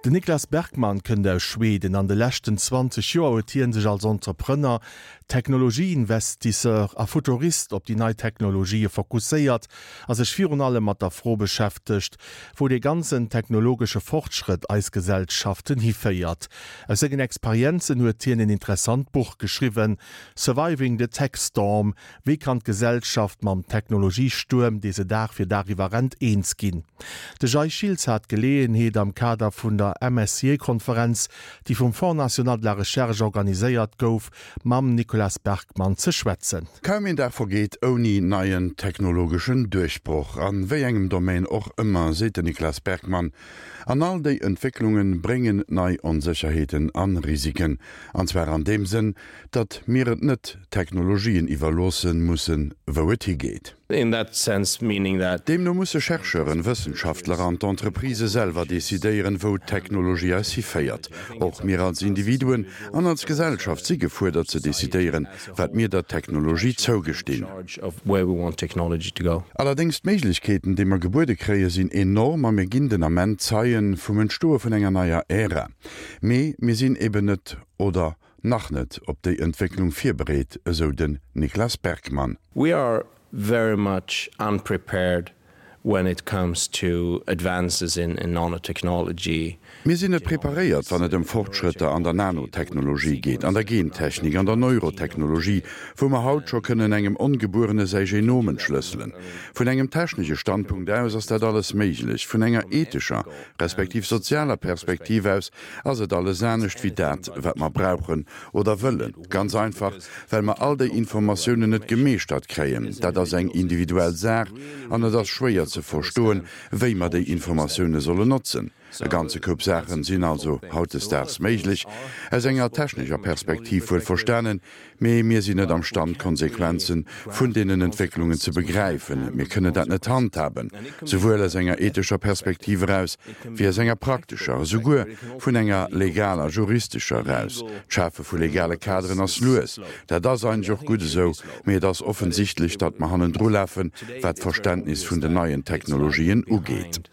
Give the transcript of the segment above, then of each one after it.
Den Niklas Bergman kënnt aus Schweden. An de leschten 20 Joer huet hien sech als Entrepreneur, Technologieinvestisseur a Futurist op déi nei Technologië fokusséiert a sech virun allem mat der Fro beschäftegt, wou dee ganzen technologesche Fortschrëtt eis Gesellschaften hiféiert. Aus sengen Experienzen huet hien en interessant Buch geschriwwen, Surviving the Tech Storm, Wéi kann d'Gesellschaft mam Technologiestuerm, dee se Dag fir Dag iwwerrennt, eens ginn? De Jay Schiltz hat d'Geleeënheet, am Kader vun der MSCA-Konferenz, déi vum Fonds national de la recherche organiséiert gouf, mam Nicolas Bergmann ze schwätzen. Kaum een Dag vergeet ouni neien technologeschen Duerchbroch, an wéi engem Domaine och ëmmer, seet den Nicolas Bergmann. An all déi Entwécklunge bréngen nei Onsécherheeten an Risiken. An zwar an deem Sënn, datt mir et net Technologien iwwerloosse mussen, wou et higeet. In that sense meaning that. Deemno musse Chercheuren, Wëssenschaftler an d'Entreprisë selwer decidéieren, wou d'Technologie eis hiféiert. Och mir als Individuen an als Gesellschaft si gefuerdert ze decidéieren, wat mir der Technologie zougestinn. Allerdéngs, d'Méiglechkeeten, déi mer gebuede kréie sinn enorm a mir ginn den Ament Zeie vum Entstoe vun enger neier Ära. Mee mir sinn eben net, oder nach net op déi Entwécklung virbereet, esou den Niklas Bergmann. We are very much unprepared when it comes to advances in nanotechnology. Mir sinn net preparéiert, wann et ëm Fortschrëtter an der Nanotechnologie geet, an der Gentechnik, an der Neurotechnologie, wou mer haut scho kënnen engem Ongebuerene säi Genom entschlësselen. Vun engem technesche Standpunkt aus ass dat alles méiglech, vun enger ethescher respektiv sozialer Perspektiv aus ass et alles anescht wéi dat, wat mer brauchen oder wëllen. Ganz einfach, well mer all déi Informatiounen net gemeeschtert kréien. Dat ass eng individuell Saach an et ass schwéier ze verstoen, wéi mer déi Informatioune sollen notzen. E ganze Koup Saachen sinn also hautdesdaags méiglech, aus enger technescher Perspektiv wuel verstanen, Mee mir sinn net am Stand, d'Konsequenze vun deenen Entwécklungen ze begräifen. Mir kënnen dat net handhaben, souwuel aus enger ethescher Perspektiv eraus wéi aus enger praktescher, esouguer vun enger legaler, juristescher eraus. D'Schafe vu legale Kaderen ass lues. Dat ass eigentlech och gutt esou, mee et ass offensichtlech, datt mer hannendrulafen, wat d'Verständnis vun den neien Technologien ugeet.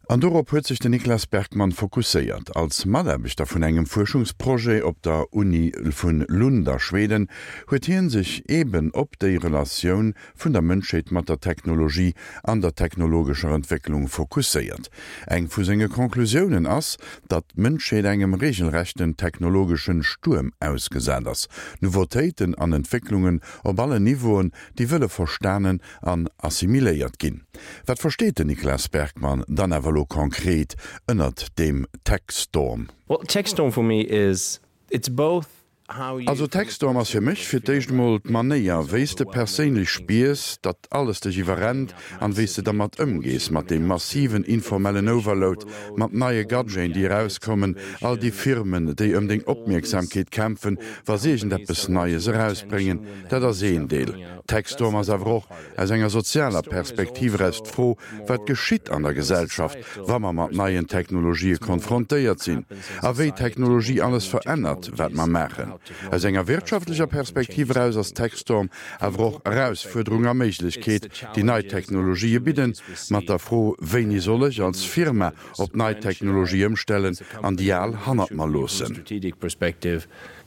An dorop huet sech den Niklas Bergmann fokusséiert. Als Mataarbechter vun engem Fuerschungsprojet op der Uni vun Lund a Schweden huet hien sech eben op déi Relatioun vun der Mënschheet mat der Technologie an der technologescher Entwécklung fokusséiert. Eng vu senge Conclusiounen ass, datt d'Mënschheet engem regelrechten technologeschen Stuerm ausgesat ass. Nouveautéiten an Entwécklungen op allen Niveauen, déi wëlle verstanen an assimiléiert ginn. Wat versteet den Niklas Bergmann dann awer elo konkret ënnert deem Techstorm? Well, Techstorm for me is, it's both how you. Also Techstorm ass fir mech fir d'éischt emol d'Manéier wéi s de perséinlech spiers, datt alles dech iwwerrennt an wéi s de dermat ëmgees, mat deem massiven informellen Overload, mat neie Gadgeten déi erauskommen, all déi Firmen déi ëm deng Opmierksamkeet kämpfen, wa se iergendeppes Neies erausbréngen. Dat ass een Deel. Techstorm ass awer och aus enger sozialer Perspektiv eraus d'Fro, wat geschitt an der Gesellschaft, wa mer mat neien Technologië konfrontéiert sinn a wéi Technologie alles verännert, wat mer maachen. Aus enger wirtschaftlecher Perspektiv eraus ass Techstorm awer och Erausfuerderung a Méiglechkeet, déi nei Technologië bidden, mat der Fro, Wéini soll ech als Firma op nei Technologie ëmstellen an déi al hannert mer loossen?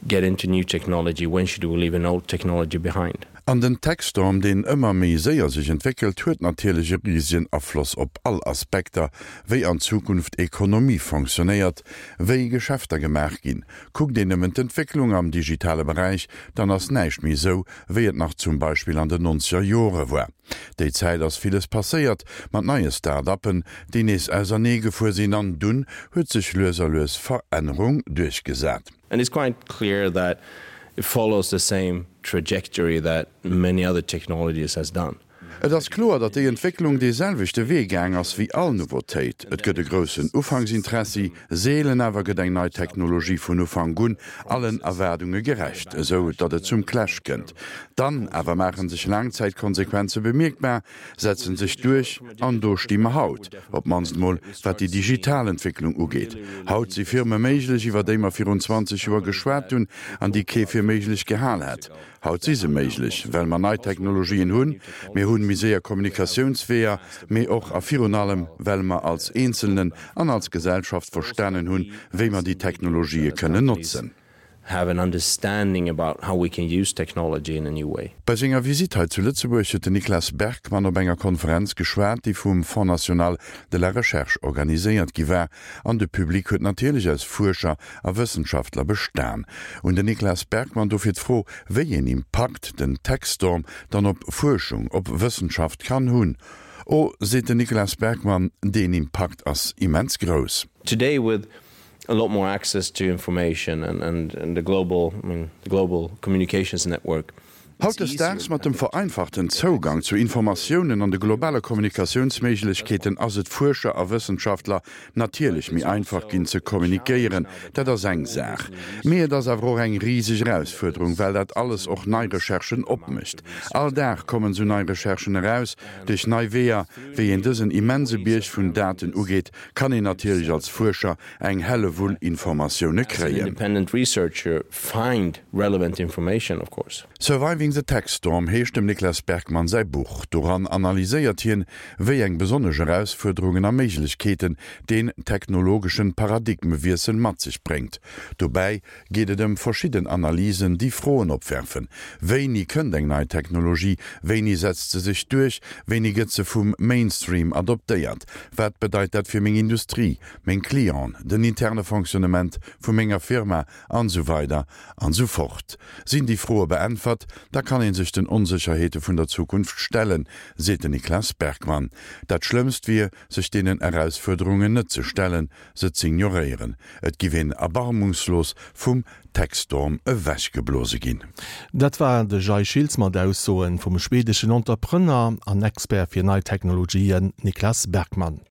Get into new technology, when should we leave an old technology behind? An den Techstorm, deen ëmmer méi séier sech entwéckelt, huet natierlech e risegen Afloss op all Aspekter, wéi an Zukunft Ekonomie fonctionnéiert, wéi Geschäfter gemaach ginn. Kuckt een nëmmen d'Entwécklung am digitale Beräich, dann ass näischt méi esou, wéi et nach zum Beispill an den nonzeger Jore war. Déi Zäit ass villes passéiert, mat neie Start-uppen, déi nees ausernee gefuer sinn, an dunn huet sech lues a lues Verännerung duerchgesat. And it's quite clear that it follows the same trajectory that many other technologies has done. Et ass kloer, datt déi Entwécklung dee selwechte Wee gaang ass wéi all Nouveautéit. Et gëtt e groussen Ufanksinteressi, seelen awer gëtt eng nei Technologie vun Ufank un allen Erwaardunge gerecht, esou datt et zum Clash kënnt. Dann awer maache sech Laangzäitkonsequenze bemierkbar, setzen sech duerch an do sti mer haut, op d'mannst mol wat déi digital Entwécklung ugeet. Haut si Firme méiglech, iwwer déi mer virun 20 Joer geschwat hunn an déi kee fir méiglech gehal hätt. Haut si se méiglech, well mer nei Technologien hunn. Mir hunn. hunn méi séier Kommunikatiounsweeër, mee och a virun allem, well mer als Eenzelnen an als Gesellschaft verstanen hunn, wéi mer déi Technologië kënnen notzen. Have an understanding about how we can use technology in a new way. Bei senger Visitt hei zu Lëtzebuerg huet den Niklas Bergmann op enger Konferenz geschwat, déi vum Fonds national de la recherche organiséiert gi war. An de Public huet natierlech aus Fuerscher a Wëssenschaftler bestan. Un den Niklas Bergmann dofir d'Fro, wéi een Impakt den Tech-Storm dann op Fuerschung, op Wëssenschaft kann hunn. Oh, seet den Niklas Bergmann, deen Impakt ass immens grouss. Today with a lot more access to information and and the global I mean the global communications network. Hautdesdaags, mat dem vereinfachten Zougang zu Informatiounen an de globale Kommunikatiounsméiglechkeeten, ass et Fuerscher a Wëssenschaftler natierlech méi einfach ginn ze kommunikéieren. Dat ass eng Saach. Mee et ass awer och eng riseg Erausfuerderung, well dat alles och nei Recherchen opmécht. All Dag kommen esou nei Recherchen eraus. Duerch nei Weeër, wéi een dësen immense Bierg vun Daten ugeet, kann een natierlech als Fuerscher eng Hellewull Informatioune kréien. Surviving the Tech Storm heescht dem Niklas Bergmann säi Buch. Doran analyséiert hien, wéi eng besonnesch Erausfuerderungen a Méiglechkeeten deen technologeschen Paradigmewiessel mat sech bréngt. Dobäi geet et ëm verschidden Analysen, déi Froen opwerfen, Wéini kënnt eng nei Technologie? Wéini setzt se sech duerch? Wéini gëtt se vum Mainstream adoptéiert? Wat bedeit dat fir meng Industrie, meng Clienten, den interne Fonctionnement vu menger Firma an esou weider an esou fort? Sinn déi Froe beäntwert, da kann ee sech den Onsécherheete vun der Zukunft stellen, seet den Niklas Bergmann. Dat Schlëmmst wier, sech deenen Erausfuerderungen net ze stellen, se z'ignoréieren. Et giff een erbarmungslos vum Techstorm ewechgeblose ginn. Dat war de Jay Schiltz mat Aussoen vum schwedeschen Entrepreneur an Expert fir nei Technologien Niklas Bergmann.